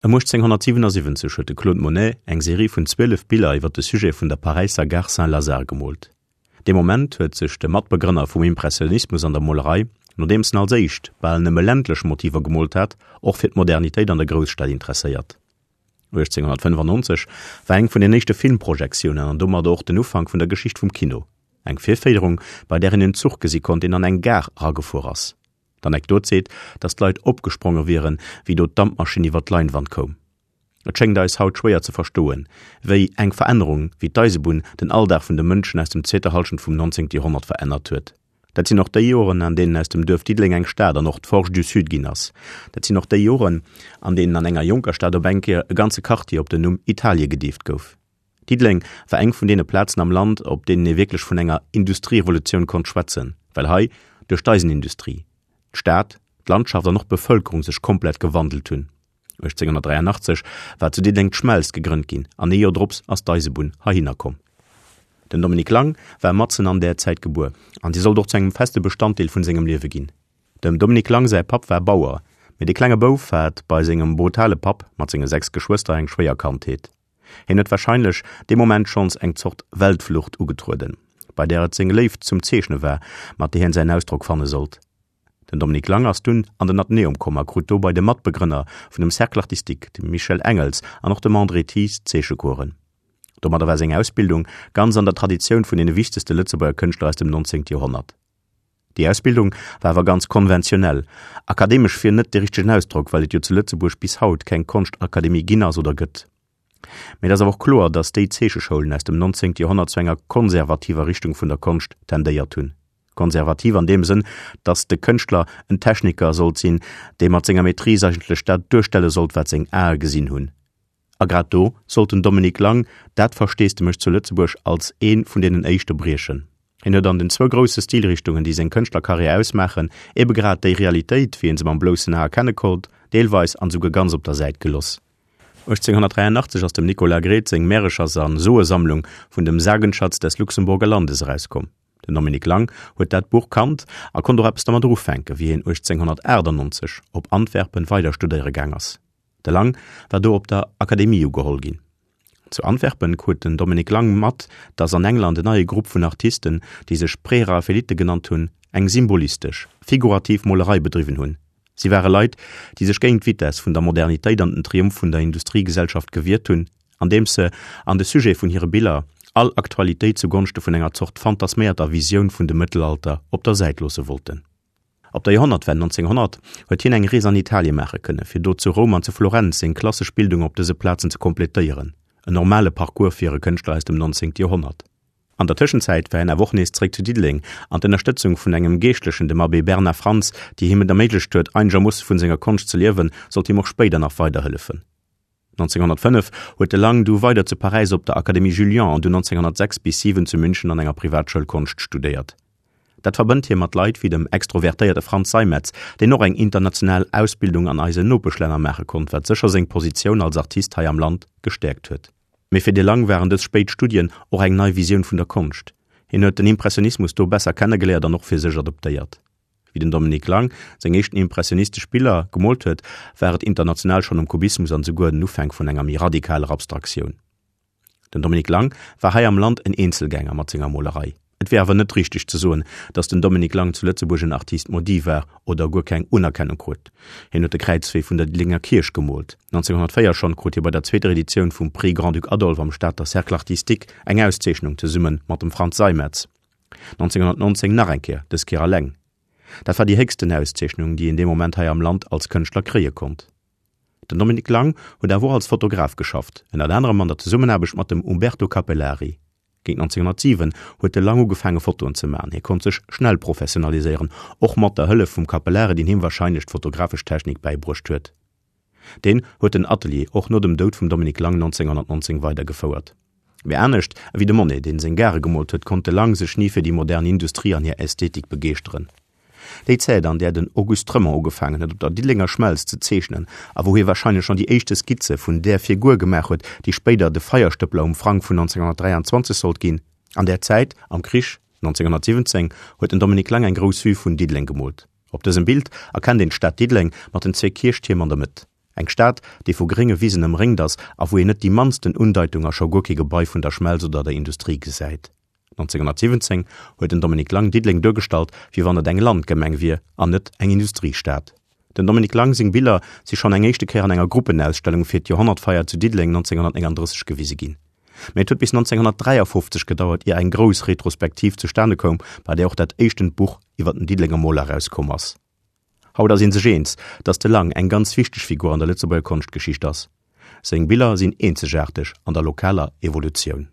Ëm 1877 huet de Claude Monet eng Serie vun 12 Biller iwwer de Sujet vun der Paräisser Gare Saint-Lazare gemoolt. Dee Moment huet sech de Matbegrënner vum Impressionismus an der Molerei, nodeems en als éischt bal nëmme ländlech Motiver gemoolt hat, och fir d'Modernitéit an der Grousstad interesséiert. 1895 war eng vun den éischte Filmprojektiounen an domadder och den Ufank vun der Geschicht vum Kino, eng Virféierung, bei där een en Zuch gesi konnt, deen an eng Gare eragefuer ass. D'Anekdot seet, datt d'Leit opgespronge wieren, wéi do d'Dampmaschinn iwwer d'Leinwand koum. Et schéngt eis haut schwéier ze verstoen, wéi eng Verännerung wéi d'Eisebunn den Alldag vun de Mënschen aus dem zweeter Hallschent vum 19. Joerhonnert verännert huet. Dat sinn och déi Joren, an deenen aus dem Duerf Diddeleng eng Stad an och d'Forge du Sud ginn ass. Dat sinn och déi Joren, an deenen an enger jonker Stad op eng Kéier e ganze Quartier op den Numm Italie gedeeft gouf. Diddeleng war eng vun deene Plazen am Land, op deenen ee wierklech vun enger Industrierevolutioun konnt schwätzen, well hei duerch d'Eisenindustrie d'Stad, d'Landschaft an och d'Bevëlkerung sech komplett gewandelt hunn. 1883 war zu Diddeleng d'Schmelz gegrënnt ginn an ee Joer drops ass d'Eisebunn heihinner komm. Den Dominique Lang war matzen an där Zäit gebuer an si sollt och zu engem feste Bestanddeel vun sengem Liewe ginn. Dem Dominique Lang säi Papp war Bauer, mee de klenge Bouf hat bei sengem brutale Papp mat senge 6 Geschwëster eng schwéier Kandheet. Hien huet warscheinlech dee Moment schonns eng Zort Weltflucht ugetrueden, bei där et seng Léift zum Zeechne war, mat där hien säin Ausdrock fanne sollt. Den Dominique Lang ass dunn an den Athenäum komm a krut do bei de Matbegrënner vun dem Cercle artistique, dem Michel Engels an och dem André Thies, Zeechecoursen. Domadder war seng Ausbildung ganz an der Traditioun vun deene wichtegste Lëtzebuerger Kënschtler aus dem 19. Joerhonnert. Déi Ausbildung war awer ganz konventionell, akademesch wier net de richtegen Ausdrock, well et jo zu Lëtzebuerg bis haut keng Konschtakademie ginn ass oder gëtt. Mee et ass awer och kloer, datt déi Zeecheschoulen aus dem 19. Joerhonnert zu enger konservativer Richtung vun der Konscht tendéiert hunn. Konservativ an deem Sënn, datt de Kënschtler en Techniker sollt sinn, dee mat senger Maîtrise eigentlech dat duerstelle sollt, wat seng Ae gesinn hunn. A grad do sollt den Dominique Lang dat Versteesdemech zu Lëtzebuerg als ee vun deenen éischte briechen. Hien huet an den zwou grousse Stilrichtungen, déi seng Kënschtlerkarriär ausmaachen, ebe grad déi Realitéit, wéi een se mam bloussen A erkenne konnt, deelweis an esouguer ganz op der Säit geloss. 1883 ass dem Nicolas Gredt seng Märechers a Soesammlung vun dem Sagenschatz des Luxemburger Landes erauskomm. Den Dominique Lang huet dat Buch kannt a konnt och eppes dermat ufänken, wéi hien 1898 op Antwerpen weider studéiere gaang ass. De Lang war do op der Akademie ugeholl ginn. Zu Antwerpen krut den Dominique Lang mat, datt an England en neie Grupp vun Artisten, déi sech Präraffaelite genannt hunn, eng symbolistesch, figurativ Molerei bedriwwen hunn. Si ware Leit, déi sech géint d'Vitess vun der Modernitéit an den Triumph vun der Industriegesellschaft gewiert hunn, andeems se an de Sujet vun hire Biller all Aktualitéit zu Gonschte vun enger Zort fantasméierter Visioun vun dem Mëttelalter op der Säit loosse wollten. Op der Joerhonnertwenn 1900 huet hien eng Rees an Italie maache kënne fir do zu Roum an zu Florenz seng klassesch Bildung op dëse Plazen ze kompletéieren, en normale Parcours fir e Kënschtler aus dem 19. Joerhonnert. An der Tëschenzäit war hien awer och nees zeréck zu Diddeleng an d'Ënnerstëtzung vun engem Geeschtlechen, dem Abbé Bernard Frantz, déi him et erméiglecht huet einegermoosse vun senger Konscht ze liewen, sollt him och spéider nach weiderhëllefen. 1905 huet de Lang du weider zu Paräis op der Académie Julian an du 1906 bis 7 zu München an enger Privatschoul Konscht studéiert. Dat verbënnt hie mat Leit wéi dem extrovertéierte Franz Seimetz, deen och eng international Ausbildung an eisen Nopeschlänner maache konnt, wat sécher seng Positioun als Artist hei am Land gestäerkt huet. Mee fir de Lang waren dës spéit Studien och eng nei Visioun vun der Konscht. Hien huet den Impressionismus do besser kennegeléiert an och fir sech adoptéiert. Wéi den Dominique Lang seng éischten impressionistesch Biller gemoolt huet, war et international schonn um Kubismus an esouguer den Ufänk vun enger méi radikaler Abstraktioun. Den Dominique Lang war hei am Land en Eenzelgänger mat senger Molerei. Et wier awer net richteg ze soen, datt den Dominique Lang zu Lëtzebuerg en Artiste maudit war oder guer keng Unerkennung krut. Hien huet de Kräizwee vun der Diddelenger Kierch gemoolt. 1904 schonn krut hie bei der zweeter Editioun vum Prix Grand-Duc Adolphe am Stater Cercle artistique eng Auszeechnung zesumme mat dem Frantz Seimetz. 1919 nach eng Kéier, dës Kéier alleng. Dat war déi héchsten Auszeechnung, déi een dee Moment hei am Land als Kënschtler kréie konnt. Den Dominique Lang huet awer och als Fotograf geschafft, ënnert anerem an der Zesummenaarbecht mat dem Umberto Capellari. Géint 1907 huet de Lang ugefaange Fotoen ze maachen. Hie konnt sech schnell professionaliséieren, och mat der Hëllef vum Capellari, deen him warscheinlech d'fotografesch Technik bäibruecht huet. Deen huet den Atelier och no dem Doud vum Dominique Lang 1919 weidergefouert. Mee anescht ewéi de Monet, deen seng Gare gemoolt huet, konnt de Lang sech ni fir déi modern Industrie an hir Ästhetik begeeschteren. Déi Zäit, an där den Auguste Tremont ugefaangen huet op der Diddelenger Schmelz ze zeechnen a wou hie warscheinlech schonn déi éischte Skizze vun där Figur gemaach huet, déi spéider de Feierstëppler um Frang vun 1923 sollt ginn, an där Zäit, am Krich 1917, huet den Dominique Lang eng grouss Vue vun Diddeleng gemoolt. Op dësem Bild erkennt een d'Stad Diddeleng mat den zwee Kierchtierm an der Mëtt. Eng Stad, déi vu grénge Wisen ëmréngt ass a wou een net déi mannsten Undeitung a scho guer kee Gebai vun der Schmelz oder der Industrie gesäit. 1917 huet den Dominique Lang Diddeleng duergestallt, wéi wann et eng Landgemeng wier an net eng Industriestad. Dem Dominique Lang seng Biller si schonn eng éischte Kéier an enger Gruppenausstellung fir d'Joerhonnertfeier zu Diddeleng 1939 gewise ginn. Mee et huet bis 1953 gedauert, ier eng grouss Retrospektiv zustane koum, bei där och dat éischtent Buch iwwer den Diddelenger Moler erauskomm ass. Haut ass ee sech eens, datt de Lang eng ganz wichteg Figur an der Lëtzebuerger Konschtgeschicht ass. Seng Biller sinn eenzegaarteg an der lokaler Evolutioun.